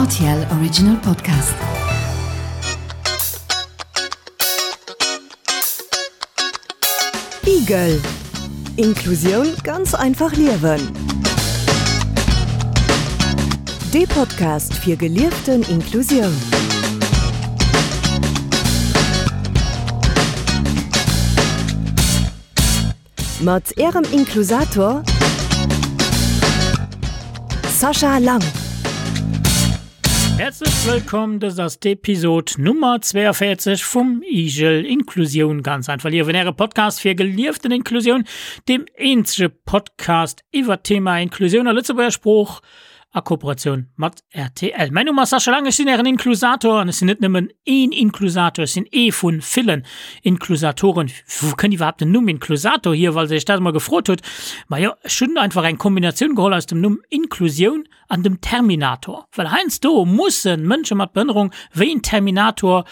RTL Original Podcast. Igel Inklusioun ganz einfach liewen. Dee Podcast fir gelieften Inklusioun. Mat Ärem Inklusator Sascha Lang. Häerzlech wëllkomm, dëst ass d'Episod Nummer 42 vum Igel Inklusioun ganz einfach liewen, äre Podcast fir gelieften Inklusioun, deem eenzege Podcast iwwer d'Thema Inklusioun a Lëtzebuerger Sprooch a Kooperatioun mat rtl. Mäin Numm ass Sascha Lang, ech sinn ären Inklusator an ech sinn net nëmmen een Inklusator, ech sinn ee vu villen Inklusatoren. Wou kënnt iwwerhaapt den Numm Inklusator hier, falls Dir Iech dat emol gefrot hutt? Majo, ech hunn einfach eng Kombinatioun geholl aus dem Numm Inklusioun an dem Terminator, well heiansdo musse Mënsche mat Behënnerung wéi en Terminator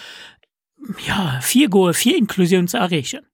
ja, virgoe fir Inklusioun ze erreechen.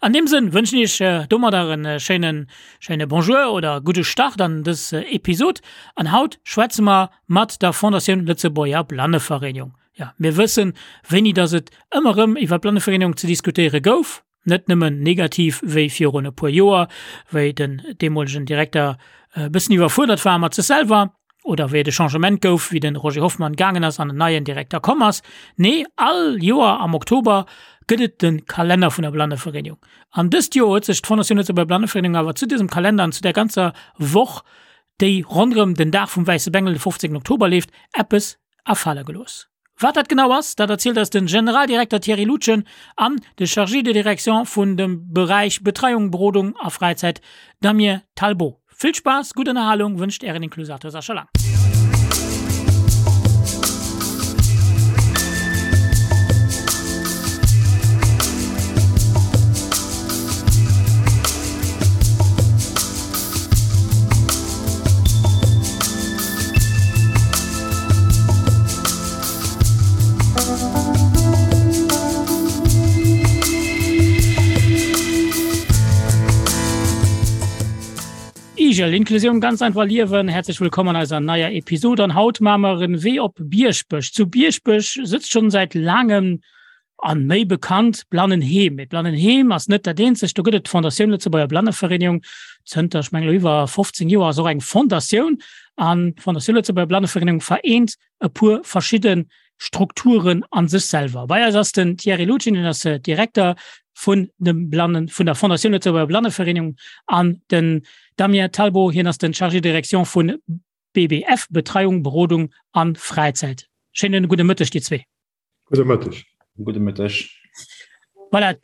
An deem Sënn wënschen ech iech domadder en schéinen, schéine Bonjour oder gudde Start an dës Episod. An haut schwätze mer mat der Fondatioun Lëtzebuerger Blannevereenigung. Ja, mir wëssen, wéini dass et ëmmer erëm iwwer d'Blannevereenigung ze diskutéiere gouf. Net nëmmen negativ wéi virun e puer Joer, wéi den deemolegen Direkter e bëssen iwwerfuerdert war mat sech selwer, oder wéi et e Changement gouf, wéi de Roger Hoffmann gaangen ass an en neien Direkter komm ass. Nee, all Joer am Oktober gëtt et de Kalenner vun der Blannevereenigung. An dëst Joer huet sech d'Fondation Lëtzebuerger Blannevereenigung awer zu dësem Kalender an zu där ganzer Woch, déi ronderëm den Dag vum Wäisse Bengel, de 15 Oktober leeft, eppes afale gelooss. Wat dat genau ass, dat erzielt eis de Generaldirekter Thierry Lutgen an de Chargé de direction vun dem Beräich Betreiung, Berodung a Fräizäit Damien Talbot. Vill Spaass, gutt Ënnerhalung wënscht Ären Inklusator Sascha Lang. Igel, Inklusioun ganz einfach liewen. Herzlich willkommen an eiser neier Episode. An haut maache mer en Wee op Bierschbech. Zu Bierschbech sëtzt schon seit langem An méi bekannt, Blannenheem. Mee d'Blannenheem ass net dat eenzegt. Do gëtt et d'Fondatioun Lëtzebuerger Blannevereenigung. Zënter, ech mengen elo iwwer 15 Joer ass och eng Fondatioun. An d'Fondatioun Lëtzebuerger Blannevereenigung vereent e puer verschidde Strukturen a sech selwer. Bei eis ass den Thierry Lutgen, hien ass Direkter vun dem Blannen, vun der Fondatioun Lëtzebuerger Blannevereenigung an den Damien Talbot, hien ass den Chargé de direction vun BBF, Betreiung, Berodung an Fräizäit. Schéinen gudde Mëtteg dir zwee. Gudde Mëtteg. Gudde Mëtteg. Voilà.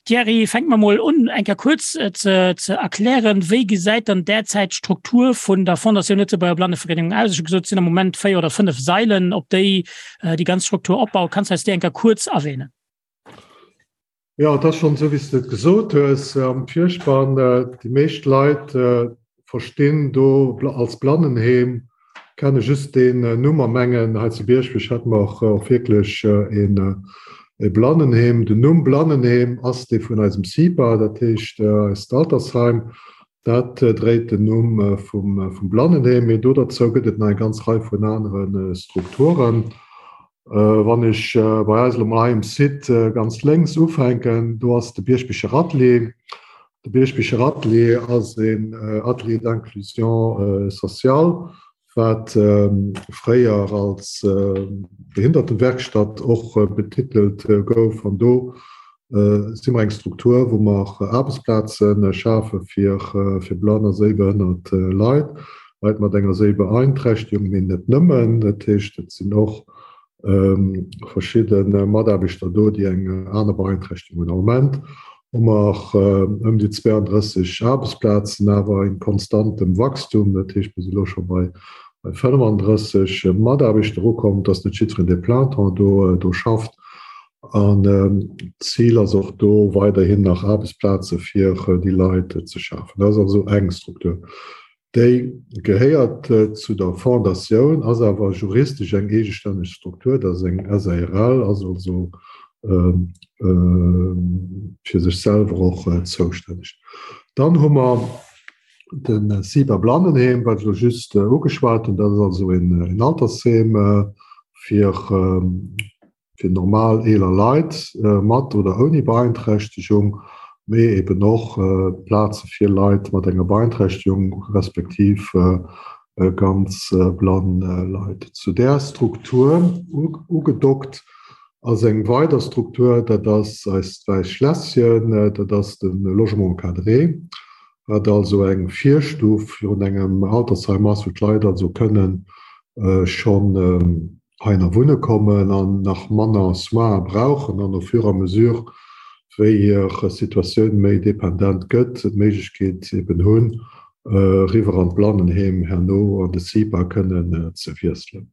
Thierry, fänke mer mol un, eng Kéier kuerz ze, ze erklären, wéi gesäit dann derzäit d'Struktur vun der Fondatioun Lëtzebuerger Blannevereenigung aus? Ech hu gesot, et sinn am Moment véier oder fënnef Sailen, op déi déi ganz Struktur opbaut. Kanns du eis déi eng Kéier kuerz erwähnen? Jo, et ass schonn esou, wéi s de et gesot hues am Virspann. Déi meescht Leit verstinn do als Blannenheem, kenne just deen Numm a mengen, hei zu Bierschbech hätte mer och wierklech e Blannenheem. Den Numm Blannenheem ass dee vun eisem CIPA, dat heescht eist Altersheim. Dat dréit den Numm vum Blannenheem. Mee do derzou gëtt et nach eng ganz Rei vun anere Strukturen. Wann ech bei eis elo mol hei um Site ganz lénks ufänken, do ass de Bierschbicher Atelier. De Bierschbicher Atelier ass een Atelier d'inclusion sociale, wat fréier als Behindertenwerkstatt och betitelt gouf. An do si mer eng Struktur, wou mer Aarbechtsplaze schafe fir blann a séibehënnert Leit. Leit mat enger Séibeeinträchtegung, mee net nëmmen. Dat heescht, et sinn och verschidde Mataarbechter do, déi eng aner Beeinträchtegung hunn. Am Moment hu mer ëm déi 32 Aarbechtsplazen, awer in konstantem Wachstum. Dat heescht, mir si elo scho bei 35 Mataarbechter ukomm. Et ass net jiddwereen, dee plein temps do schafft. An d'Zil ass och do, weiderhin nach Aarbechtsplaze fir déi Leit ze schafen. Dat ass also eng Struktur. Déi gehéiert zu der Fondatioun, ass awer juristesch eng eegestänneg Struktur, dat ass eng SARL, ass also fir sech selwer och zoustänneg. Dann hu mer. De CIPA Blannenheem, wat ech elo just ugeschwat hunn, dat ass also een Altersheem fir fir normal eeler Leit mat oder ouni Beeinträchtegung, mee eben och Plaze fir Leit mat enger Beeinträchtegung respektiv ganz blann Leit. Zu där Struktur ugedockt ass eng weider Struktur, dat ass eist Wäisst Schlässchen, dat ass de Logement encadré, wat also eng Virstuf virun engem Altersheim ass, wou d'Leit also kënnen schonn heihinner wunne kommen an nach manner Soins brauchen an au fur et à mesure, wéi hir Situatioun méi dependent gëtt, d'Méiglechkeet eben hunn, eriwwer an d'Blannenheem herno an de CIPA kënnen ze wiesselen.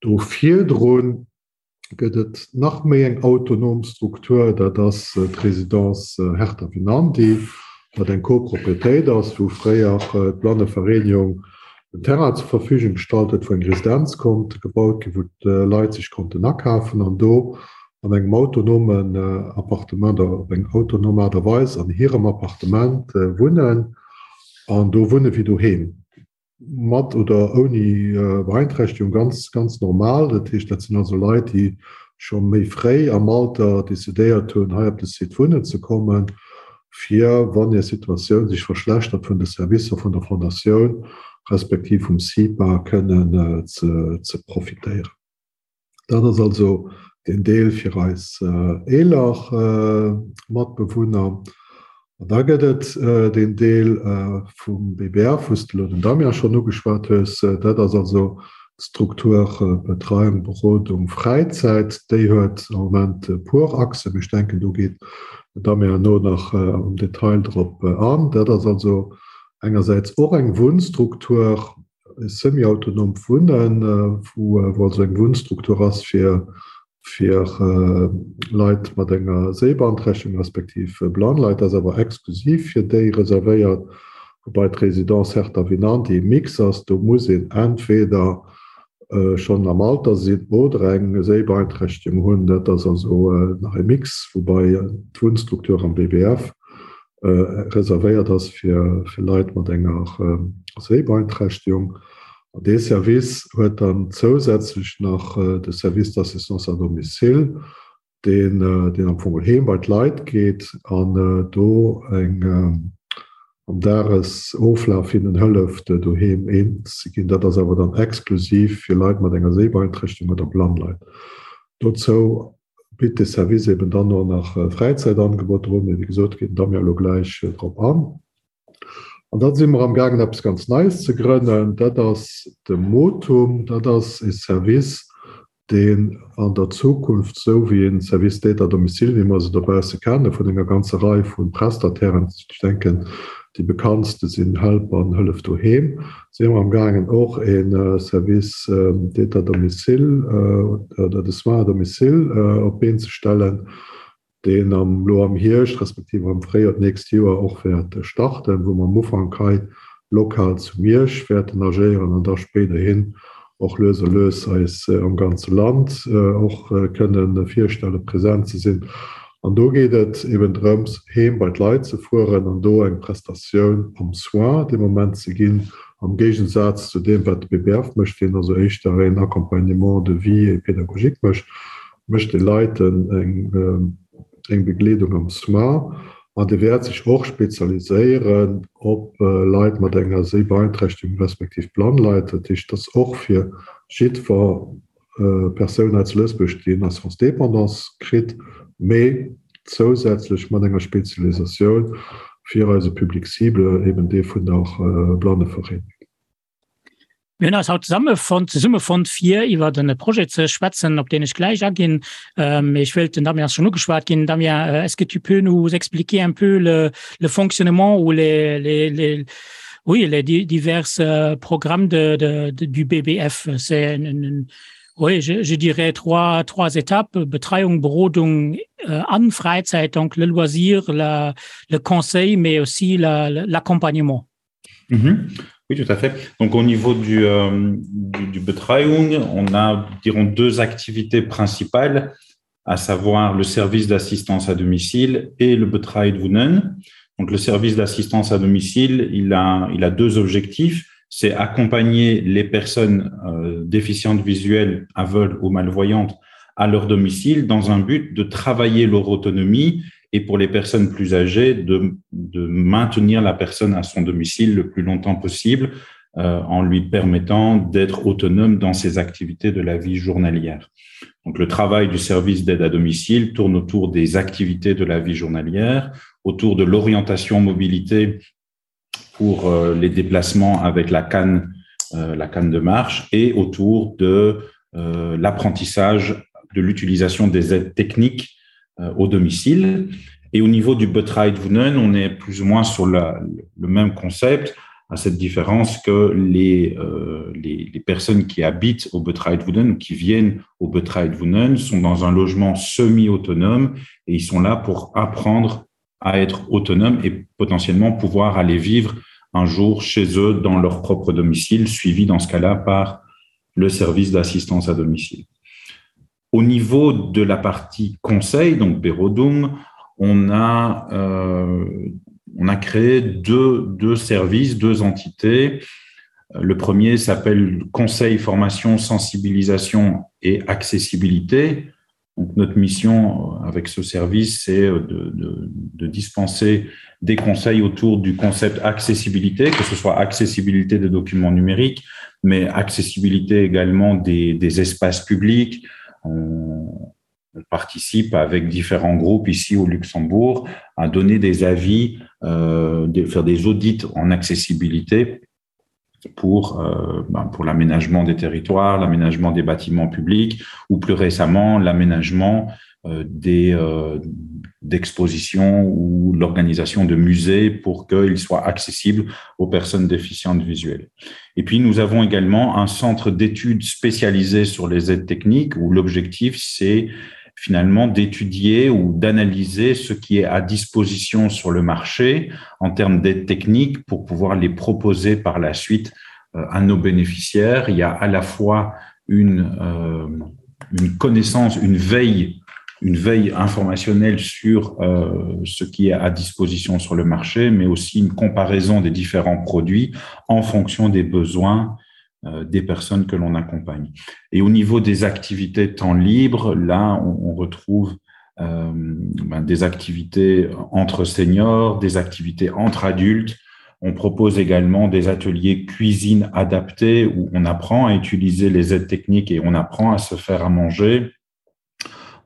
Do virdrun gëtt et nach méi eng autonom Struktur, dat ass d'Résidence Hertha Winandy, wat eng Copropriétéit ass, wou fréier d'Blannevereenigung den Terrain zur Verfügung gestallt huet, wou eng Residenz konnt gebaut ginn, wou d'Leit sech konnten akafen an do an engem autonomen Appartement oder op eng autonom Aart a Weis an hirem Appartement wunnen an do wunne wéi doheem. Mat oder ouni Beeinträchtegung, ganz, ganz normal. Dat heescht, dat sinn also Leit, déi scho méi fréi am Alter decidéiert hunn, hei op de Site wunnen ze kommen, fir, wann hir Situatioun sech verschlechtert, vun de Servicer vun der Fondatioun respektiv vum CIPA kënnen ze profitéieren. Dat ass also deen Deel fir eis eeler Matbewunner. An da gëtt et deen Deel vum BBF, wou s de elo den Damien schonn ugeschwat hues. Dat ass also d'Struktur Betreiung, Berodung, Fräizäit. Déi huet am Moment e puer Achsen, mee ech denken, do geet den Damien herno nach am Detail drop an. Dat ass also engersäits och eng Wunnstruktur, e semi-autonomt Wunnen, wou also eng Wunnstruktur ass fir fir Leit mat enger Séibeanträchtegung respektiv blann Leit, ass awer exklusiv fir déi reservéiert, woubai d'Résidence Hertha Vinanti e Mix ass, do muss een entweder schonn am Alter sinn oder eng Séibeeinträchtegung hunn. Dat ass also nach e Mix, woubai d'Wunnstruktur am BBF reservéiert ass fir Leit mat enger Séibeeinträchtegung. An dee Service huet dann zousätzlech nach de Service d'assistance à domicile, deen deen am Fong heem bei d'Leit geet an do eng am Dagesoflaf hinnen hëlleft, doheem eens ze ginn. Dat ass awer dann exklusiv fir Leit mat enger Séibeeinträchtegung oder blann Leit. Dozou bitt de Service eben dann och nach Fräizäitangeboter un, mee wéi gesot, geet den Damien elo gläich drop an. An da si mer am gaangen eppes ganz Neies ze grënnen, dat ass de Motum. Dat ass e Service, deen an der Zukunft, esou wéi e Service d'aide à domicile, wéi mer se dobausse kenne vun enger ganzer Rei vu Prestatairen, ech denken déi bekanntste sinn Help an Hëllef Doheem, si mer am gaangen och e Service d'aide à domicile oder de soins à domicile op d'Been ze stellen, deen am elo am Hierscht respektiv am Fréijoer d'nächst Joer och wäert starten, wou mer am Ufank hei lokal zu Miersch wäerten agéieren an da spéiderhin och lues a lues eis am ganze Land och kënne virstellen, present ze sinn. An do geet et eben drëms, heem bei d'Leit ze fueren an do eng Prestatioun am Soin dee Moment ze ginn, am Géigensaz zu deem, wat de BBF mécht, deen also éischter een Accompagnement de vie et pédagogique mécht. mécht de Leit eng Begleedung am Soin an dee wäert sech och spezialiséieren op Leit mat enger Séibeeinträchtegung respektiv blann Leit. Dat heescht, dass och fir jiddwer Persoun hei zu Lëtzebuerg, déi en Assurance dépendance kritt, mee zousätzlech mat enger Spezialisatioun fir eise Public cible, eben dee vun der Blannevereenigung. Mir hunn eis haut zesammefonnt, zesummefonnt fir iwwer en Projet ze schwätzen, op deen ech gläich aginn. Mee ech wéilt, den Damien ass schonn ugeschwat ginn. Damien, est-ce que tu peux nous expliquer un peu le, le fonctionnement ou les, les, les, oui, les divers programmes de, de, de, du BBF? C'est une, une, oui, je, je dirais trois, trois étapes, Betreiung, Berodung äh, an Freizeit, donc le loisir, la, le conseil, mais aussi l'accompagnement. Mhm. Oui, tout à fait. Donc au niveau du, euh, du, du Betreuung, on a dirons deux activités principales, à savoir le service d'assistance à domicile et le Betreut Wunnen. Donc le service d'assistance à domicile, il a, il a deux objectifs, c'est accompagner les personnes euh, déficientes visuelles, aveugles ou malvoyantes à leur domicile dans un but de travailler leur autonomie et pour les personnes plus âgées de, de maintenir la personne à son domicile le plus longtemps possible euh, en lui permettant d'être autonome dans ses activités de la vie journalière. Donc le travail du service d'aide à domicile tourne autour des activités de la vie journalière, autour de l'orientation mobilité pour euh, les déplacements avec la canne, euh, la canne de marche et autour de euh, l'apprentissage de l'utilisation des aides techniques euh, au domicile. Et au niveau du Butride Vunen, on est plus ou moins sur la, le même concept, à cette différence que les, euh, les, les personnes qui habitent au Butride Vunen ou qui viennent au Butride Vunen sont dans un logement semi-autonome et ils sont là pour apprendre à être autonome et potentiellement pouvoir aller vivre un jour chez eux dans leur propre domicile, suivi dans ce cas-là par le service d'assistance à domicile. Au niveau de la partie conseil, donc Berodum, on a, euh, on a créé deux, deux services, deux entités. Le premier s'appelle Conseil, formation, sensibilisation et accessibilité. Donc, notre mission euh, avec ce service, c'est euh, de, de, de dispenser des conseils autour du concept accessibilité, que ce soit accessibilité des documents numériques, mais accessibilité également des, des espaces publics. On, on participe avec différents groupes ici au Luxembourg à donner des avis, euh, de faire des audits en accessibilité pour, euh, ben, pour l'aménagement des territoires, l'aménagement des bâtiments publics ou plus récemment l'aménagement euh, des euh, d'expositions ou l'organisation de musées pour qu'ils soient accessibles aux personnes déficientes visuelles. Et puis nous avons également un centre d'études spécialisé sur les aides techniques où l'objectif c'est finalement d'étudier ou d'analyser ce qui est à disposition sur le marché en termes d'aides techniques pour pouvoir les proposer par la suite euh, à nos bénéficiaires. Il y a à la fois une, euh, une connaissance, une veille, une veille informationnelle sur euh, ce qui est à disposition sur le marché, mais aussi une comparaison des différents produits en fonction des besoins euh, des personnes que l'on accompagne. Et au niveau des activités temps libre, là, on, on retrouve euh, ben, des activités entre seniors, des activités entre adultes. On propose également des ateliers cuisine adaptés où on apprend à utiliser les aides techniques et on apprend à se faire à manger.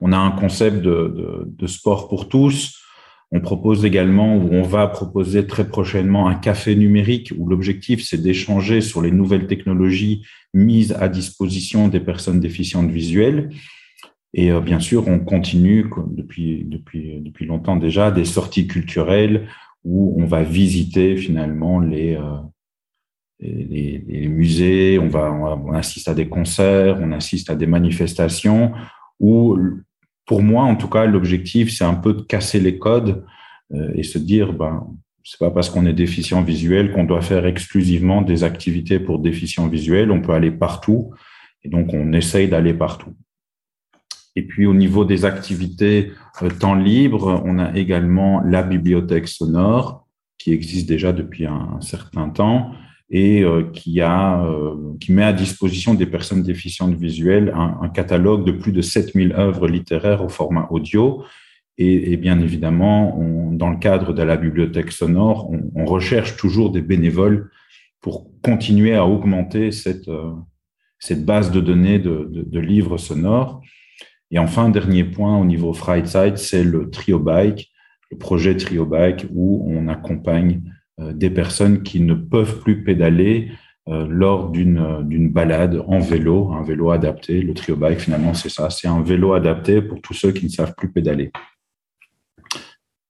On a un concept de, de, de sport pour tous. On propose également ou on va proposer très prochainement un café numérique où l'objectif c'est d'échanger sur les nouvelles technologies mises à disposition des personnes déficientes visuelles. Et euh, bien sûr, on continue depuis, depuis, depuis longtemps déjà des sorties culturelles où on va visiter finalement les, euh, les, les musées, on, va, on assiste à des concerts, on assiste à des manifestations où pour moi en tout cas l'objectif c'est un peu de casser les codes euh, et se dire ben c'est pas parce qu'on est déficient visuel qu'on doit faire exclusivement des activités pour déficient visuel on peut aller partout et donc on essaye d'aller partout et puis au niveau des activités euh, temps libre on a également la bibliothèque sonore qui existe déjà depuis un, un certain temps et euh, qui a euh, qui met à disposition des personnes déficientes visuelles un, un catalogue de plus de 7000 œuvres littéraires au format audio et, et bien évidemment on, dans le cadre de la bibliothèque sonore on, on recherche toujours des bénévoles pour continuer à augmenter cette euh, cette base de données de, de, de livres sonores et enfin dernier point au niveau Freizeit c'est le trio bike le projet trio bike où on accompagne euh, des personnes qui ne peuvent plus pédaler euh, lors d'une euh, d'une balade en vélo, un vélo adapté. Le trio bike finalement c'est ça, c'est un vélo adapté pour tous ceux qui ne savent plus pédaler.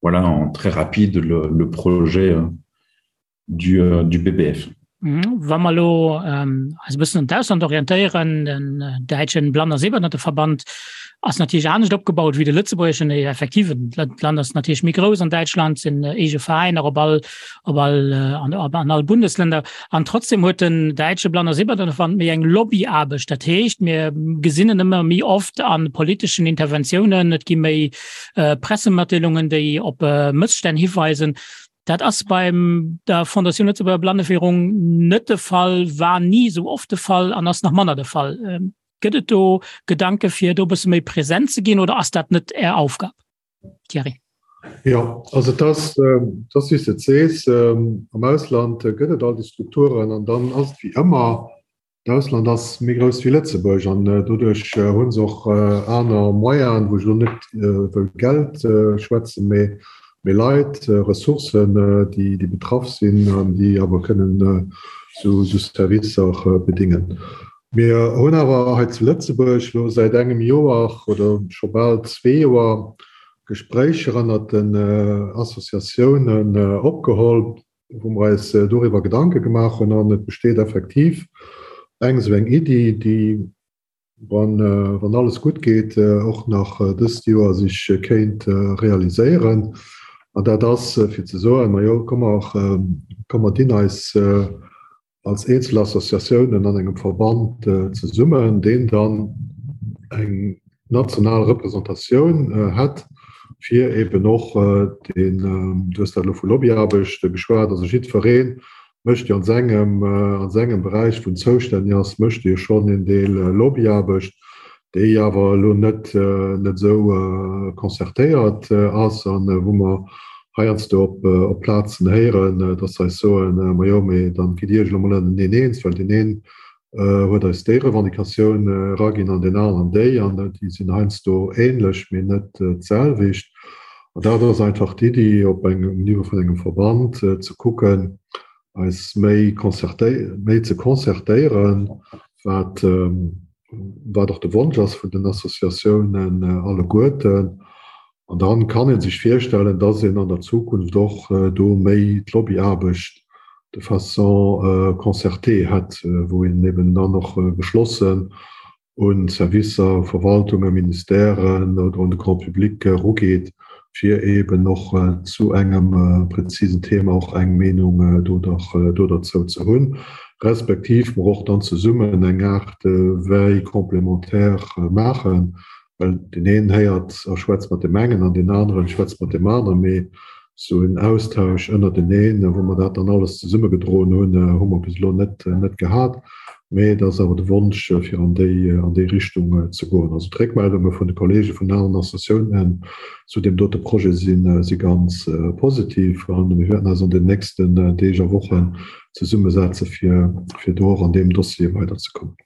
Voilà en très rapide le, le projet du, du BBF. Mhm. Wa mer elo eis e bëssen un d'Ausland orientéieren, den däitschen Blann a Sehbehinderteverband ass natierlech anescht opgebaut wéi de lëtzebuergeschen. Effektiv, d'Land ass natierlech méi grouss. An Däitschland sinn eege Veräiner op all, op all, an, an all Bundesländer. An trotzdem huet den däitsche Blann a Sehbehinderteverband méi eng Lobbyaarbecht. Dat heescht, mir gesinn en ëmmer méi oft a politeschen Interventiounen, et gi méi Pressematdeelungen, déi op Mësstänn hiweisen. Dat ass beim der Fondation Lëtzebuerger Blanneführung net de Fall, war ni esou oft de Fall an ass nach manner de Fall. Ähm, gëtt et do Gedanke fir do bësse méi präsent ze ginn oder ass dat net Är Aufgab? Thierry. Ja, also et ass, ähm, et ass wéi s de et sees, ähm, am Ausland gëtt et all déi Strukturen an dann ass et wéi ëmmer, D'Ausland ass méi grouss wéi Lëtzebuerg an doduerch hu se och aner Moyenen, wou ech elo net wëll Geld schwätzen, mee méi Leit, Ressourcen, déi betraff sinn an déi awer kënnen esou Servicer bedingen. Mir hunn awer hei zu Lëtzebuerg elo säit engem Joer oder scho bal zwee Joer Gespréicher ënnert den Associatiounen opgeholl, wou mer eis doriwwer Gedanke gemaach hunn an et besteet effektiv eng esou eng Iddi, déi, wann, wann alles gutt geet, och nach dëst Joer sech kéint realiséieren. An dat ass fir ze soen, Majo, komm mer, komm mer dinn eis als eenzel Associatiounen an engem Verband zesummen, deen dann eng national Representatioun hätt, fir eben och deen, du hues dat elo vu Lobbyaarbecht geschwat, also jiddweree mécht jo an sengem, a sengem Beräich, wou en zoustänneg ass, mécht e jo schonn een Deel Lobbyaarbecht, déi awer elo net net esou concertéiert ass an wou mer heiansdo op op Plazen héieren, dass se eis soen, majo, mee dann gitt Iech elo mol ënnerteneen eens, well deen een huet eis déi Revendicatioun eraginn an deen aneren déi, an déi sinn heiansdo ähnlech, mee net d'selwecht. An dat ass einfach d'Iddi, op engem um Niveau vun engem Verband ze kucken, eis méi concerté méi ze concertéieren, wat wat och de Wonsch ass vun den Associatiounen alleguerten. An dann kann ee sech virstellen, dass een an der Zukunft och do méi d'Lobbyaarbecht de façon concertée hätt, wou een eben dann och geschlossen un Servicer, Verwaltungen, Ministèren oder un de Grand public erugeet, fir eben och zu engem präzisen Thema och eng Meenung do dozou ze hunn, respektiv mer och dann zesummen eng Aart Veille complémentaire maachen, well deen een héiert a schwätzt mat deem engen an deen aneren schwätzt mat deem aneren, mee Sou en Austausch ënnerteneen, wou mer dat dann alles zesummegedroen hunn, hu mer bis elo net net gehat. Mee et ass awer de Wonsch, fir an déi an déi Richtung ze goen. Also d'Réckmeldunge vun de Kollege vun aneren Associatiounen zu deem dote Projet si si ganz positiv. A mir wäerten eis an den nächsten Deeg a Wochen zesummesetze fir fir do och an deem Dossier weiderzekommen.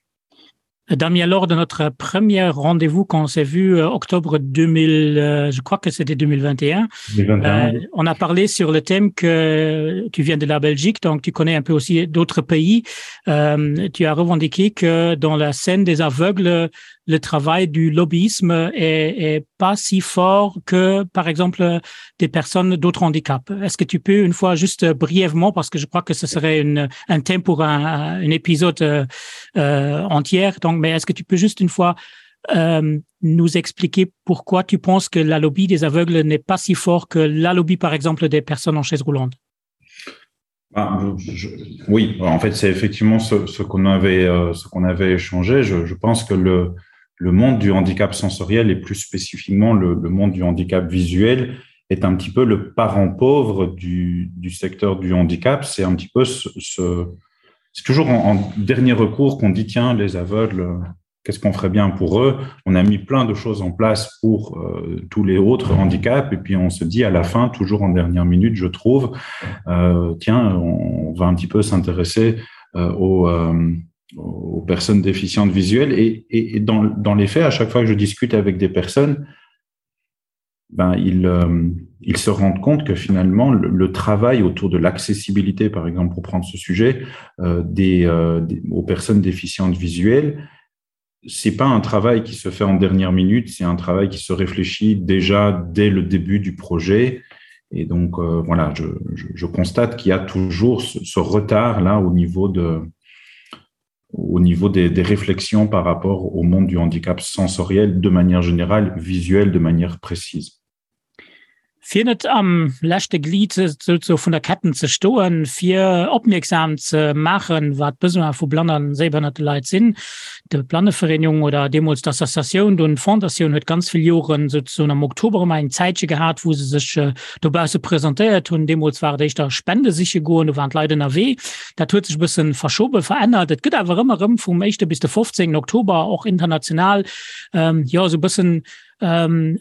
Damien, lors de notre premier rendez-vous qu'on s'est vu euh, octobre 2000, euh, je crois que c'était 2021, 2021. Euh, on a parlé sur le thème que tu viens de la Belgique, donc tu connais un peu aussi d'autres pays. Euh, tu as revendiqué que dans la scène des aveugles, le travail du lobbyisme est, est pas si fort que, par exemple, des personnes d'autres handicaps. Est-ce que tu peux une fois juste brièvement, parce que je crois que ce serait une, un thème pour un, un épisode euh, euh, entière, donc, mais est-ce que tu peux juste une fois euh, nous expliquer pourquoi tu penses que la lobby des aveugles n'est pas si fort que la lobby, par exemple, des personnes en chaise roulante? Ah, je, oui, en fait, c'est effectivement ce, ce qu'on avait, euh, ce qu'on avait échangé. Je, je pense que le, le monde du handicap sensoriel et plus spécifiquement le, le monde du handicap visuel est un petit peu le parent pauvre du, du secteur du handicap. C'est un petit peu ce, ce c'est toujours en, en dernier recours qu'on dit tiens, les aveugles, qu'est-ce qu'on ferait bien pour eux On a mis plein de choses en place pour euh, tous les autres handicaps et puis on se dit à la fin, toujours en dernière minute, je trouve, euh, tiens, on, on va un petit peu s'intéresser euh, aux, euh, aux personnes déficientes visuelles et, et, et dans, dans les faits, à chaque fois que je discute avec des personnes, ben, ils, euh, ils se rendent compte que finalement le, le travail autour de l'accessibilité, par exemple pour prendre ce sujet, euh, des, euh, des, aux personnes déficientes visuelles, c'est pas un travail qui se fait en dernière minute, c'est un travail qui se réfléchit déjà dès le début du projet. Et donc euh, voilà, je, je, je constate qu'il y a toujours ce, ce retard là au niveau de au niveau des, des réflexions par rapport au monde du handicap sensoriel de manière générale, visuel de manière précise. Fir net am leschte Glied souzesoe vun der Ketten ze stoen, fir opmierksam ze maachen, wat d'Besoin vu blann a séibehënnerte Leit sinn. D'Blannevereenigung oder deemools d'Associatioun, dunn d'Fondatioun huet ganz vill Joren souzesoen am Oktober ëmmer eng Zäitche gehat, wou se sech dobausse presentéiert hunn. Deemools war et éischter Spende siche goen, do waren d'Leit ënnerwee. Dat huet sech e bësse verschoben, verännert. Et gëtt awer ëmmer erëm vum éischte bis de 15. Oktober och international, jo, esou e bëssen Ähm,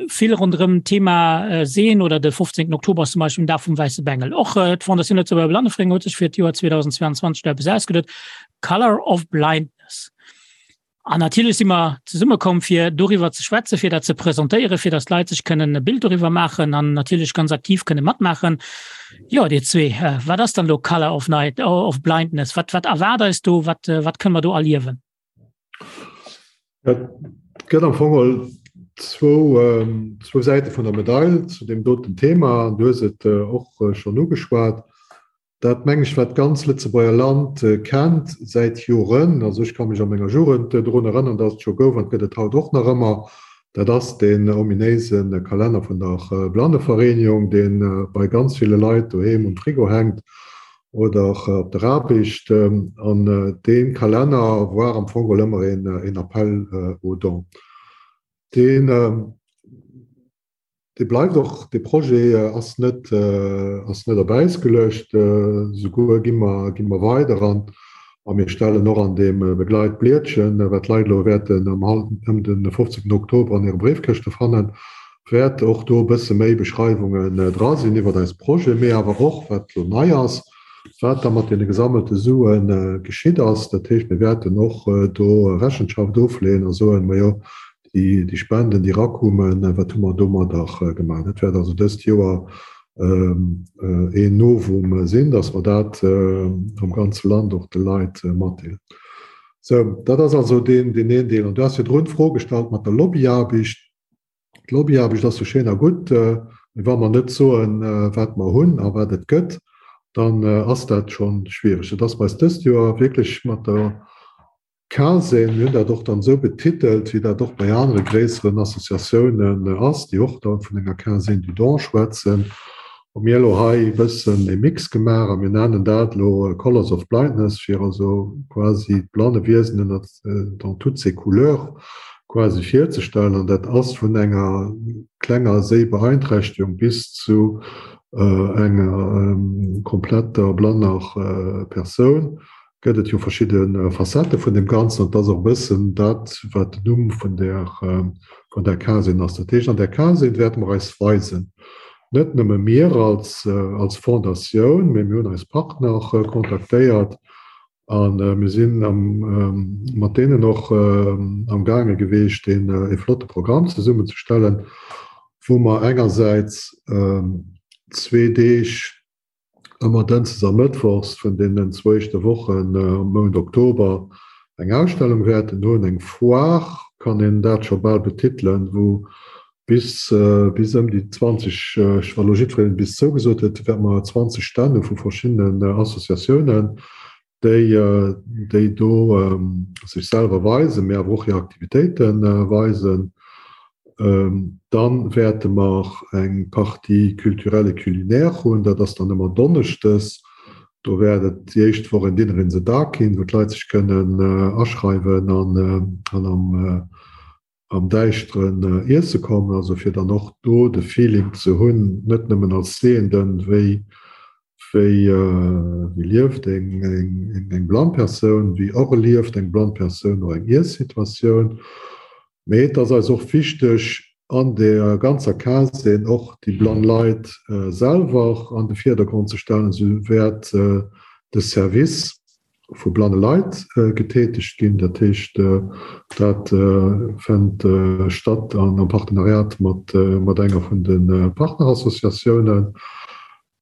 vill ronderëm d'Thema äh, Seen oder de 15. Oktober zum Beispill den Dag vum wäisse Bengel. Och äh, d'Fondation Lëtzebuerger Blannevereenigung huet sech fir d'Joer 2022 do eppes ausgeduet, Color of Blindness. An natierlech si mer zesummekomm, fir doriwwer ze schwätzen, fir dat ze presentéieren, fir datt d'Leit sech kënnen e Bild doriwwer maachen an natierlech ganz aktiv kënne matmaachen. Jo, Dir zwee, äh, wat ass dann elo Color of Night, of Blindness? Wat, wat erwaart eis do? Wat, äh, wat kënne mer do erliewen? Et gëtt am Fong geholl zwou, zwou Säite vun der Medail zu deem doten Thema. Du hues et och schonn ugeschwat. Dat, meng ech, wat d'ganz Lëtzebuerger Land kennt säit Joren, also ech ka mech a menger Jugend drun erënneren, datt et scho gouf an et gëtt et haut och nach ëmmer, dat ass deen ominéise Kalenner vun der Blannevereenigung, dee bei ganz ville Leit doheem um Frigo hänkt oder op der Aarbecht. An dee Kalenner war am Fong geholl ëmmer een Appel aux dons. Deen, dee bleift och, dee Projet ass net, ass net op Äis geluecht. Souguer gi mer, gi mer weider an a mir stellen och an deem Begleitblietchen, wat d'Leit elo wäerten am ëm de 15 Oktober an hire Bréifkëschte fannen, wäert och do e bësse méi Beschreiwungen dra sinn iwwert eis Projet, mee awer och, wat elo nei ass, wat da mat deene gesammelte Sue geschitt ass. Dat heescht, mir wäerten och do Rechenschaft ofleeën a soen, Majo, déi Spenden, déi erakumen, wat hu mer domadder gemaach? Dat wäert also dëst Joer een Novum sinn, dass mer dat am ganze Land och de Leit matdeelen. Sou, dat ass also deen een Deel. An du has virdrun d'Fro gestallt mat der Lobbyaarbecht. D'Lobbyaarbecht ass jo schéin a gutt, mee wa mer net soen, wat mer hunn a wat et gëtt, dann ass dat scho schwiereg. Et ass bei eis dëst Joer wierklech mat der CASE, mir hunn dat och dann esou betitelt, wéi dat och bei anere gréisseren Associatiounen ass, déi och da vun enger Quinzaine du don schwätzen, hu mir elo hei e bëssen e Mix gemaach a mir nennen dat elo Colors of Blindness, fir also quasi d'Blannewiesen ënnert dans toutes ses couleurs quasi virzestellen. An dat ass vun enger klenger Séibeeinträchtegung bis zu enger kompletter blanner Persoun gëtt et jo verschidde Facettë vun deem Ganzen. An et ass och e bëssen dat, wat den Numm vun där, vun där Quinzaine ass. Dat heescht, an där Quinzaine wäerte mer eis weisen, net nëmme mir als, als Fondatioun, mee mir hunn eis Partner kontaktéiert a mir sinn am, mat deenen och amgaange geweecht, deen e flotte Programm zesummenzestellen, wou mer engersäits zwee Deeg, ëmmer dënschdes a mëttwochs vun deenen zwou éischte Wochen am Mount Oktober eng Ausstellung wäerten hunn, eng Foire kann een dat scho bal betitelen, wou bis bis ëm déi 20, wa lo jiddwereen bis zougesot huet, wäerte mer 20 Stänn hu vu verschiddenen Associatiounen, déi déi do sech selwer weisen, mee awer och hir Aktivitéite weisen. Dann wäerte mer eng Partie culturelle et culinaire hunn, dat ass dann ëmmer donneschdes. Do wäert et déi éischt Woch en Dinner in the Dark ginn, wou d'Leit sech kënnen aschreiwen an am am Däischteren iesse kommen, also fir dann och do de Feeling ze hunn, net nëmmen als Sehenden, wéi wéi wéi lieft eng eng eng blann Persoun, wéi erlieft eng blann Persoun och eng Iessituatioun. Mee et ass eis och wichteg, an der ganzer Quinzaine och déi blann Leit selwer an de Virdergrond ze stellen. Esou wäert de Service vu blanne Leit getätegt ginn. Dat heescht, dat fënnt statt am Partenariat mat enger vun de Partnerassociatiounen.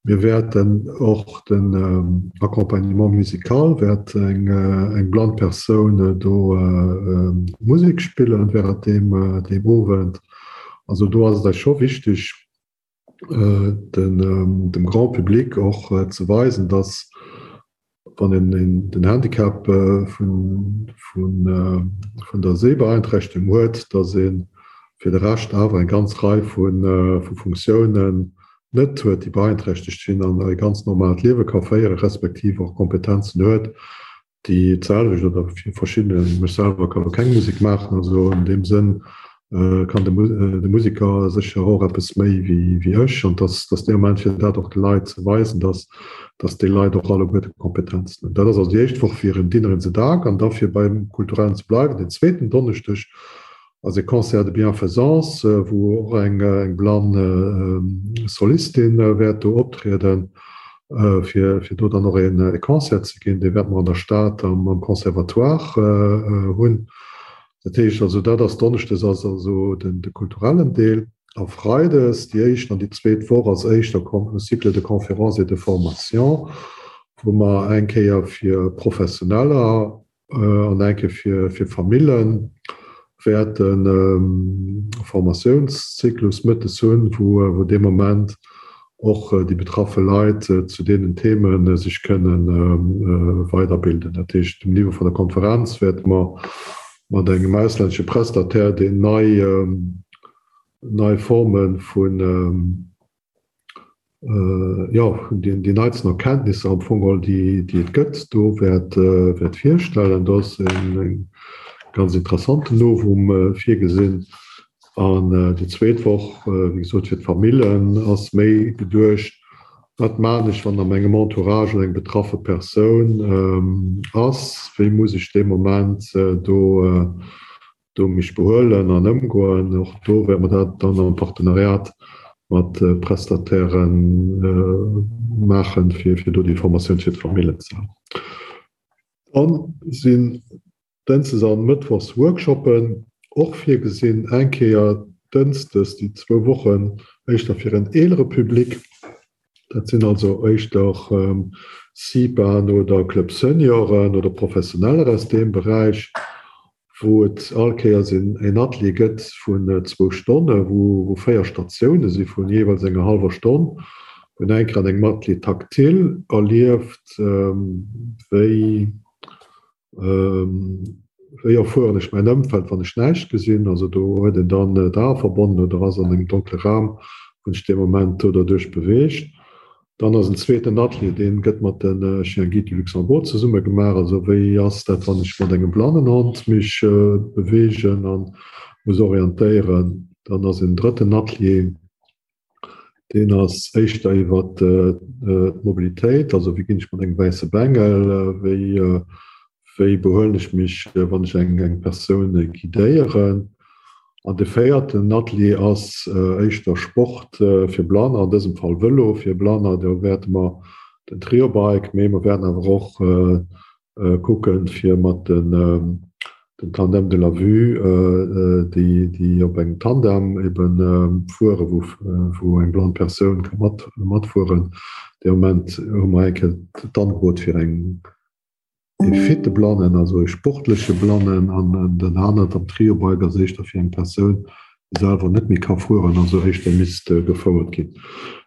Mir wäerten och den Accompagnement musical, wäert eng blann Persoun do Musek spillen während deem Owend. Also do ass et eis scho wichteg, dem Grand public och ze weisen, dass wann een den Handicap vun der Sehbeeinträchtegung huet, dass ee fir de Rescht awer eng ganz Rei vu Funktiounen net huet, déi beeinträchtegt sinn an e ganz normaalt Liewe ka féieren, respektiv och Kompetenzen huet, déi d'selwecht oder fir verschidde, ech selwer ka lo keng Musek maachen, also an deem Sënn kann de Museker sécher och eppes méi wéi ech. An dass dass dee Moment fir dat och de Leit ze weisen, dass dass déi Leit och alleguerte Kompetenzen hunn. Dat ass also déi éischt Woch fir en Dinner in the Dark an da fir beim Kulturellen ze bleiwen, den zweeten Donneschdeg ass e Concert de bienfaisance, wou och eng blann Solistin wäert do optrieden, fir do dann och e Concert ze ginn. Dee wäerte mer an der Stad am Conservatoire hunn. Dat heescht also, dat ass donneschdes ass also de kulturellen Deel a freides déi éischt an déi zweet Woch ass éischter Cycle de conférences et de formation, wou mer eng Kéier fir Professioneller an eng Kéier fir Famillen wäerten e Formatiounszyklus mëttes hunn, wou dee Moment och déi betraffe Leit zu deenen Theme sech kënne weiderbilden. Dat heescht, um Niveau vun der Konferenz wäerte mer mat engem auslännesche Prestataire, deen nei, nei Forme vun, jo, déi neitsten Erkenntnisser am Fong geholl, déi et gëtt, do wäert, wäert virstellen. Do ass e ganz interessanten Novum virgesinn. An déi zweet Woch, wéi gesot, fir d'Famillen ass méi geduecht, Wat maan ech, wann a mengem Entourage eng betraffe Persoun ass? Wéi muss ech dee Moment do do mech behuelen an ëmgoen? Och do wäerte mer dat dann am Partenariat mat Prestataire maachen, fir do déi Formatioun fir d'Famillen ze han. Dann sinn Dënsdes an Mëttwochs Workshoppen och virgesinn, eng Kéier Dënsdes déi zwou Wochen éischter fir en eelere Public, dat sinn also éischter CIPAen oder Club Senioren oder Professioneller aus deem Beräich, wou et all Kéiers een Atelier gëtt vun zwou Stonne, wou 4 Statioune si vun jeeweils enger hallwer Stonn, wou een eng Kéier an engem Atelier tactile erlieft, wéi Wéi erfueren ech mäin Ëmfeld, wann ech näischt gesinn? Also do huet een dann d'Ae verbonnen oder ass an engem donkle Raum, wou sech dee Moment do derduerch beweegt. Dann ass en zweeten Atelier, dee gëtt mat de Chiens Guides du Luxembourg zesumme gemaach. Also wéi ass dat, wann ech mat engem Blannenhond mech beweegen a muss orientéieren? Dann ass en drëtten Atelier, Deen ass éischter iwwer d'Mobilitéit, also wéi ginn ech mat engem wäisse Bengel, wéi wéi behuelen ech mech, wann ech eng eng Persoun guidéieren. An de véierten Atelier ass éischter Sport fir Blanner, an dësem Fall Vëlo fir Blanner. Do wäerte mer den Triobike, mee mer wäerten awer och kucken, fir mat den den Tandem de la vue, déi déi op engem Tandem eben fueren, wou wou eng blann Persoun ka mat matfueren. Dee Moment hu mer eng Kéier d'Angebot fir eng ee fitte Blannen, also ee sportleche Blannen, an den anert am Triobike ass éischter fir eng Persoun, selwer net méi ka fueren, also éischter misst gefouert ginn.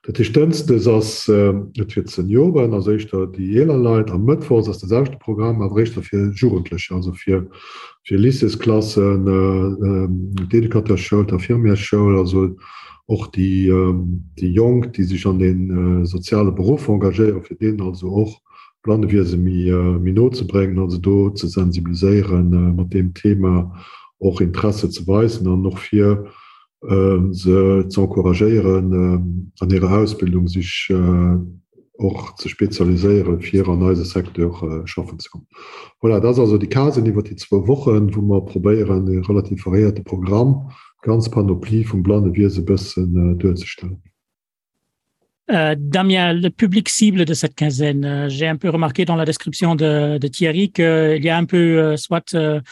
Dat heescht, dënschdes ass et fir d'Senioren, also éischter déi eeler Leit, a mëttwochs ass de selwechte Programm, awer éischter fir Jugendlecher, also fir fir Lycéesklassen, d'Educateurschoul, d'Infirmiersschoul, also och déi déi Jonk, déi sech an de soziale Beruff engagéieren, fir deenen also och Blannewiese méi méi no ze bréngen, also do ze sensibiliséieren, mat deem Thema och Interesse ze weisen an och fir se ze encouragéieren, an hirer Ausbildung sech och ze spezialiséieren, fir an eise Secteur schaffen ze kommen. Voilà, dat ass also déi Casen iwwer déi zwou Wochen, wou mer probéieren, e relativ variéierte Programm, d'ganz Panoplie vum Blannewiese e bëssen duerzestellen. Euh, Damien, le public cible de cette quinzaine, euh, j'ai un peu remarqué dans la description de, de Thierry qu'il y a un peu euh, soit euh,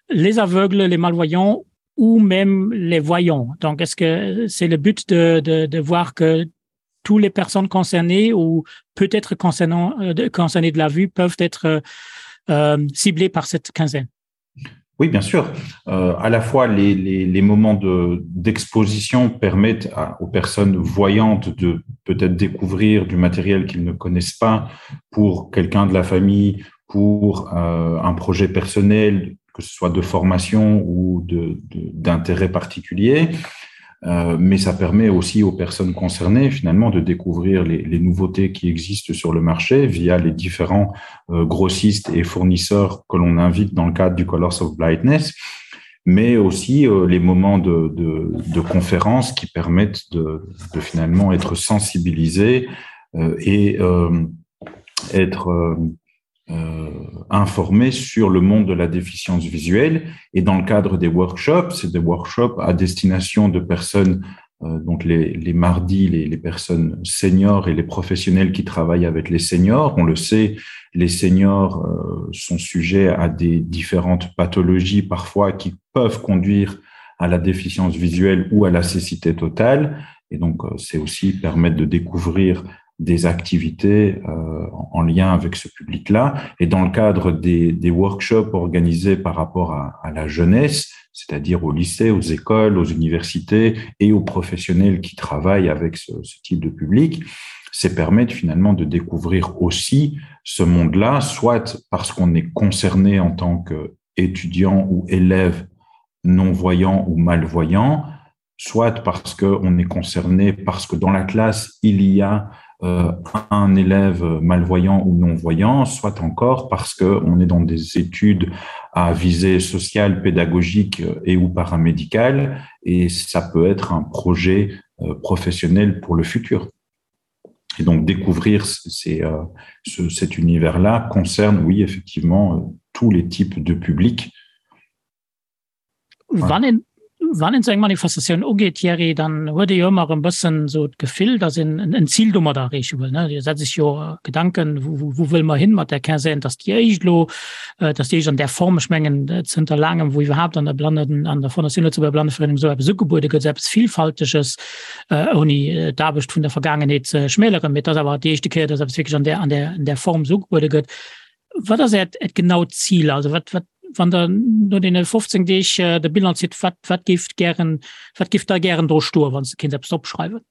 les aveugles, les malvoyants ou même les voyants. Donc est-ce que c'est le but de, de, de voir que toutes les personnes concernées ou peut-être concernant euh, concernées de la vue peuvent être euh, euh ciblées par cette quinzaine? Oui, bien sûr. Euh, à la fois, les, les, les moments d'exposition de, permettent à, aux personnes voyantes de peut-être découvrir du matériel qu'ils ne connaissent pas pour quelqu'un de la famille, pour euh, un projet personnel. que ce soit de formation ou d'intérêt particulier. Euh, mais ça permet aussi aux personnes concernées finalement de découvrir les, les nouveautés qui existent sur le marché via les différents euh, grossistes et fournisseurs que l'on invite dans le cadre du Colors of Blindness, mais aussi euh, les moments de, de, de conférences qui permettent de, de finalement être sensibilisés euh, et euh, être euh, euh, informé sur le monde de la déficience visuelle et dans le cadre des workshops, c'est des workshops à destination de personnes euh, donc les, les mardis, les, les personnes seniors et les professionnels qui travaillent avec les seniors. On le sait, les seniors euh, sont sujets à des différentes pathologies parfois qui peuvent conduire à la déficience visuelle ou à la cécité totale. Et donc, euh, c'est aussi permettre de découvrir des activités euh, en lien avec ce public-là. Et dans le cadre des, des workshops organisés par rapport à, à la jeunesse, c'est-à-dire au lycée, aux écoles, aux universités et aux professionnels qui travaillent avec ce, ce type de public, c'est permettre finalement de découvrir aussi ce monde-là, soit parce qu'on est concerné en tant qu'étudiant ou élève non-voyant ou malvoyant, soit parce qu'on est concerné, parce que dans la classe, il y a euh, un élève malvoyant ou non-voyant, soit encore parce qu'on est dans des études à visée sociale, pédagogique et ou paramédicale, et ça peut être un projet euh, professionnel pour le futur. Et donc découvrir ces, euh, ce, cet univers-là concerne, oui, effectivement, euh, tous les types de publics. Wann een, wann een sou eng Manifestatioun ugeet, Thierry, dann huet ee jo ëmmer e bëssen esou d'Gefill, datt een en Zil domat erreeche wëll, ne? Dir setzt sech jo Gedanken, wou, wou wëlle mer hin mat där Quinzaine, dass déi éischt elo, dass déi éischt an där Form, ech mengen zënter laangem, wou iwwerhaapt an der Blannen, an der Fondation Lëtzebuerger Blanneverenung esou eppes ugebuede gëtt, esou eppes Villfalteges, ouni d'Aarbecht vun der Vergaangenheet ze schmäleren, mee et ass awer déi éischte Kéier, dass eppes wierklech an där, an där, an där Form esou ugebuede gëtt. Wat ass Äert, Äert genaut Zil? Also wat, wat, wann Der no deene 15 Deeg de Bilan zitt, wat, wat géift gären, wat géif da gären do stoen, wann s de kéints eppes opschreiwen?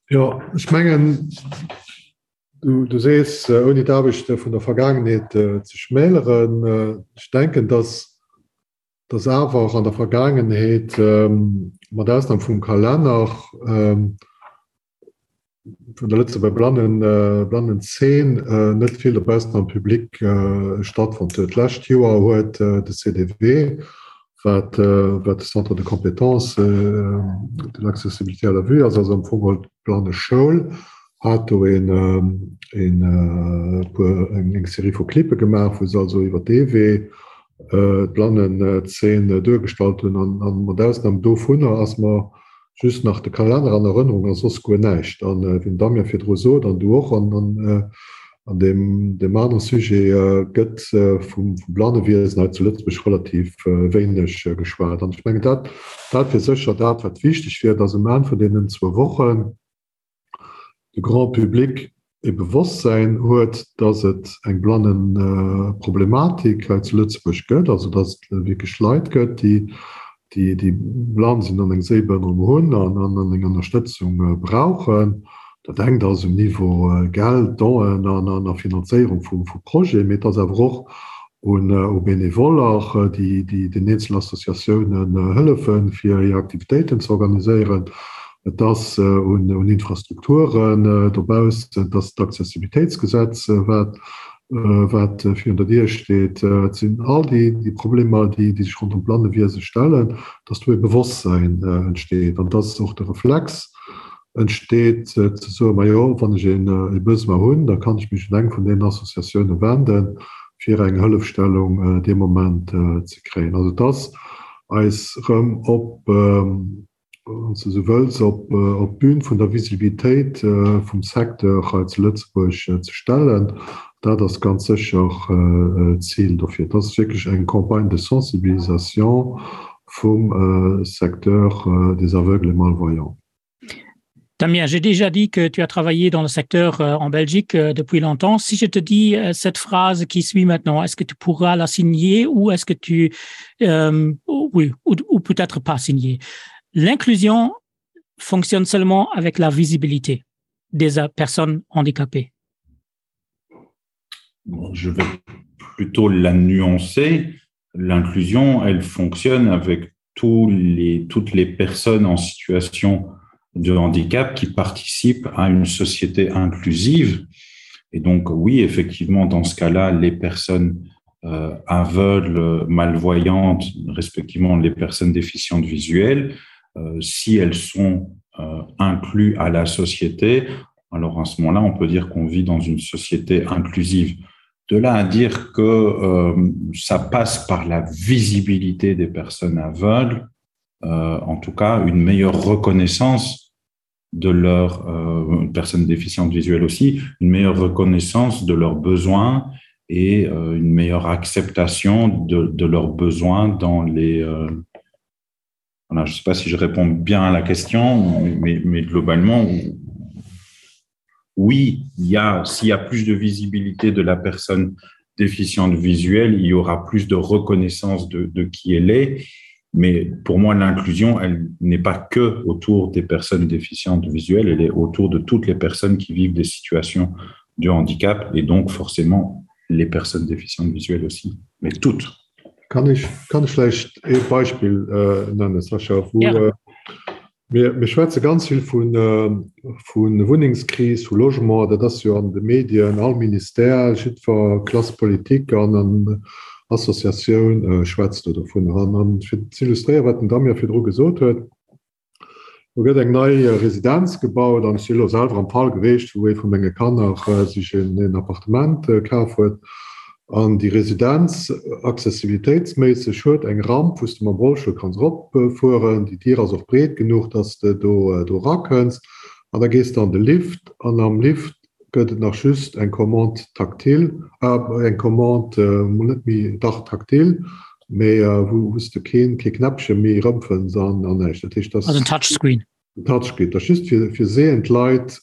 Jo, ech mengen, du, du sees, ouni d'Aarbecht vun der Vergaangenheet ze schmäleren, ech denken, dass, dass awer och an der Vergaangenheet, mat Ausnam vum Kalenner, vun der Lëtzebuerger Blannen, Blannenzeen net vill dobaussen am Public stattfonnt huet. D'lescht Joer huet de CDV, wat wat de Centre de compétences de l'accessibilité à la vue ass, also am Fong geholl d'Blanneschoul, hat do een een puer eng Serie vu Clippe gemaach, wou se also iwwer dee Wee d'Blannenzeen duergestallt hunn. An mat Ausnam dovunner ass mer just nach de Kalenner an Erënnerung a soss guer näischt. An wéi den Damien virdru sot, an du och, an an deem deem anere Sujet gëtt vum Blannewiesen hei zu Lëtzebuerg relativ wéineg geschwat. An ech mengen, dat dat wier sécher dat, wat wichteg wier, dass um Enn vun deenen zwou Wochen de Grand public e Bewosstsäin huet, dass et eng Blannenproblematik hei zu Lëtzebuerg gëtt, also dass et wierklech Leit gëtt, déi, déi blann sinn an eng Séibehënnerung hunn an eng Ënnerstëtzung brauchen. Dat engt ass um Niveau Geld, Donen an a Finanzéierung vu Projeten, mee et ass awer och un Benevoller, déi den eenzelnen Associatiounen hëllefen, fir hir Aktivitéiten ze organiséieren. Et ass un Infrastrukturen dobaussen, et ass d'Accessibilitéitsgesetz, wat wat virun der Dier steet. Et sinn all déi Problemer, déi sech ronderëm d'Blannewiese stellen, dass do e Bewosstsäin entsteet an dass och de Reflex entsteet, ze soen, Majo, wann ech e Besoin hunn, da kann ech mech un eng vun deenen Associatioune wenden, fir eng Hëllefstellung dee Moment ze kréien. Also et ass eis erëm op, wann s de esou wëlls, op d'Bün vun der Visibilitéit vum Secteur hei zu Lëtzebuerg ze stellen. Dat ass ganz sécher d'Zil dofir. Et ass wierklech eng Campagne de sensibilisation vum Secteur des aveugles et malvoyants. Damien, j'ai déjà dit que tu as travaillé dans le secteur euh, en Belgique euh, depuis longtemps. Si je te dis euh, cette phrase qui suit maintenant, est-ce que tu pourras la signer ou est-ce que tu euh, oui, ou, ou peut-être pas signer? L'inclusion fonctionne seulement avec la visibilité des personnes handicapées. Bon, je vais. plutôt la nuancer. L'inclusion, elle fonctionne avec tous les, toutes les personnes en situation de handicap qui participent à une société inclusive. Et donc, oui, effectivement, dans ce cas-là, les personnes euh, aveugles, malvoyantes, respectivement les personnes déficientes visuelles, euh, si elles sont euh, incluses à la société, alors à ce moment-là, on peut dire qu'on vit dans une société inclusive. De là à dire que euh, ça passe par la visibilité des personnes aveugles, euh, en tout cas une meilleure reconnaissance de leurs euh, personnes déficientes visuelles aussi, une meilleure reconnaissance de leurs besoins et euh, une meilleure acceptation de, de leurs besoins dans les euh, voilà, je ne sais pas si je réponds bien à la question, mais, mais globalement, oui, il y a, s'il y a plus de visibilité de la personne déficiente visuelle, il y aura plus de reconnaissance de, de qui elle est. Mais pour moi, l'inclusion, elle n'est pas que autour des personnes déficientes visuelles, elle est autour de toutes les personnes qui vivent des situations de handicap et donc forcément les personnes déficientes visuelles aussi, mais toutes. Kann ech, kann ech vläicht ee Beispill äh, nennen, Sascha, wou, ja. äh, Mir, mir schwätze ganz vill vun, vu Wunnengskris, vu Logement, dat ass jo an de Medien, all Ministère, jiddwer Classe politique an an Associatioun schwätzt do dovunner. An, an fir ze illustréieren, wat den Damien virdru gesot huet, Do gëtt eng nei Residenz gebaut an ech si elo selwer am Fall geweecht, wou ee vu menge Kanner sech en Appartement kaf huet. An déi Residenz, accessibilitéitsméisseg, huet eng Ramp, wou s de mam Rollstull kanns eropfueren. Déi Dier ass och breet genuch, dass de do erakënns. An da gees de an de Lift an am Lift gëtt et nach just eng Commande tactile, eng Commande, mol net méi, dach tactile, mee wou s de keen, kee Knäppche méi erëmfënns an näischt. Dat heescht, dass. Also en Touchscreen. En Touchscreen. Dat ass just fir, fir sehend Leit,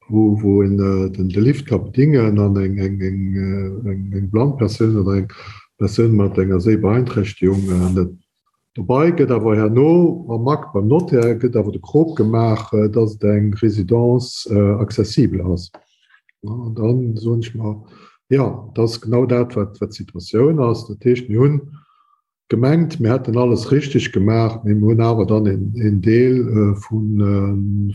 wou, wou een den, de Lift ka bedingen an eng, eng, eng, eng, eng blann Persoun oder eng Persoun mat enger Séibeeinträchtegung net. Dobei gëtt awer herno am Akt beim Notaire gëtt awer de Krop gemaach, dass et eng Résidence accessible ass. An dann soen ech mer, jo, dat ass genau dat, wat d'Situatioun ass. Dat heescht, mir hunn gemengt, mir hätten alles richtig gemaach, mee mir hunn awer dann een Deel vum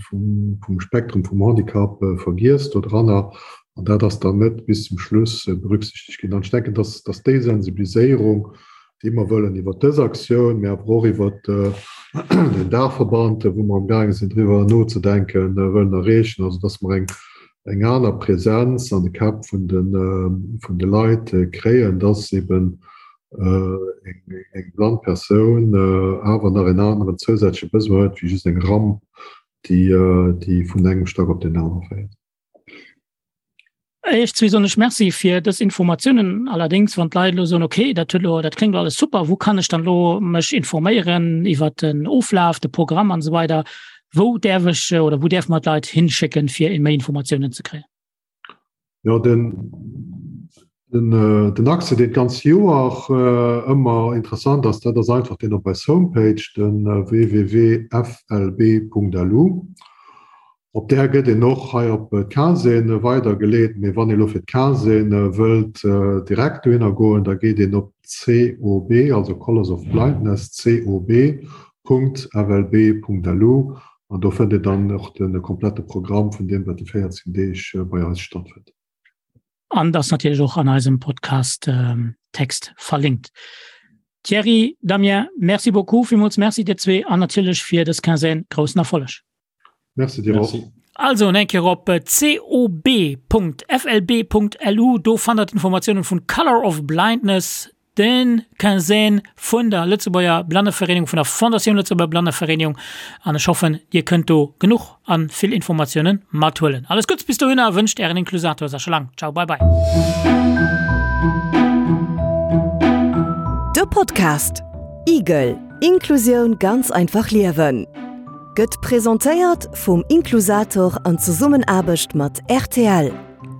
Spektrum vum Handicap vergiess dodranner. An dat ass dann net bis zum Schluss berücksichtegt ginn. An ech denken, dass déi Sensibiliséierung, déi mer wëllen iwwert dës Aktioun, mä awer och iwwert den Daachverband, wou mer amgaange sinn driwwer nozedenken, wëllen erreechen, also dass mer eng, eng aner Präsenz an de Käpp vun de, vun de Leit kréien, dass eben eng, eng blann Persoun awer nach en aneren zousätzleche Besoin huet wéi just eng Ramp, déi, déi vun engem Stack op deen anere féiert. Iech zwee soen ech Merci fir dës Informatiounen. Allerdéngs, wann d'Leit elo soen, okay, dat huet elo, dat kléngt elo alles super, wou kann ech dann elo mech informéieren iwwert den Oflaf, de Programm an esou weider, wou däerf ech oder wou däerfe mer d'Leit hinschécken, fir méi Informatiounen ze kréien? Jo, den, den, den Accès, deen d'ganz Joer ëmmer interessant ass, dat ass einfach deen op eis Homepage, de www.flb.lu. Op där gëtt een och hei op d'Quinzaine weidergeleet, mee wann ee lo fir d'Quinzaine wëllt direkt dohinner goen, da geet een op COB, also Colors of Blindness, cob.flb.lu an do fënnt een dann och de komplette Programm vun deem, wat déi 14 Deeg bei eis stattfënnt. An ass natierlech och an eisem Podcast Text verlinkt. Thierry, Damien, merci beaucoup, villmools Merci dir zwee an natierlech fir dës Quinzaine groussen Erfolleg. Merci dir och. Also en Kéier op cob.flb.lu, do fannt der d'Informatiounen vun Color of Blindness, den Quinzaine vun der Lëtzebuerger Blannevereenigung, vun der Fondatioun Lëtzebuerger Blannevereenigung an ech hoffen dir kënnt do genuch an vill Informatiounen mathuelen. Alles Gutts bis dohinner wënscht ären Inklusator Sascha Lang. Ciao bye bye. De Podcast Igel, Inklusioun ganz einfach liewen gëtt presentéiert vum Inklusator an Zesummenaarbecht mat rtl.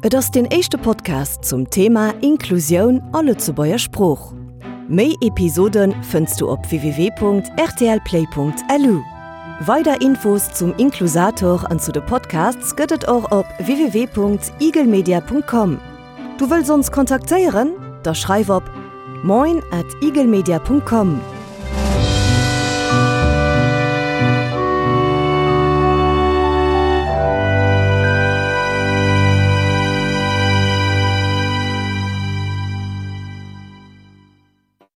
Et ass deen éischte Podcast zum Thema Inklusioun a Lëtzebuerger Sprooch. Méi Episode fënns du op www.rtlplay.lu. Weider Infos zum Inklusator an zu de Podcasts gëtt et och op www.igelmedia.com. Du wëlls ons kontaktéieren? Da schreif op moin at eaglemedia.com.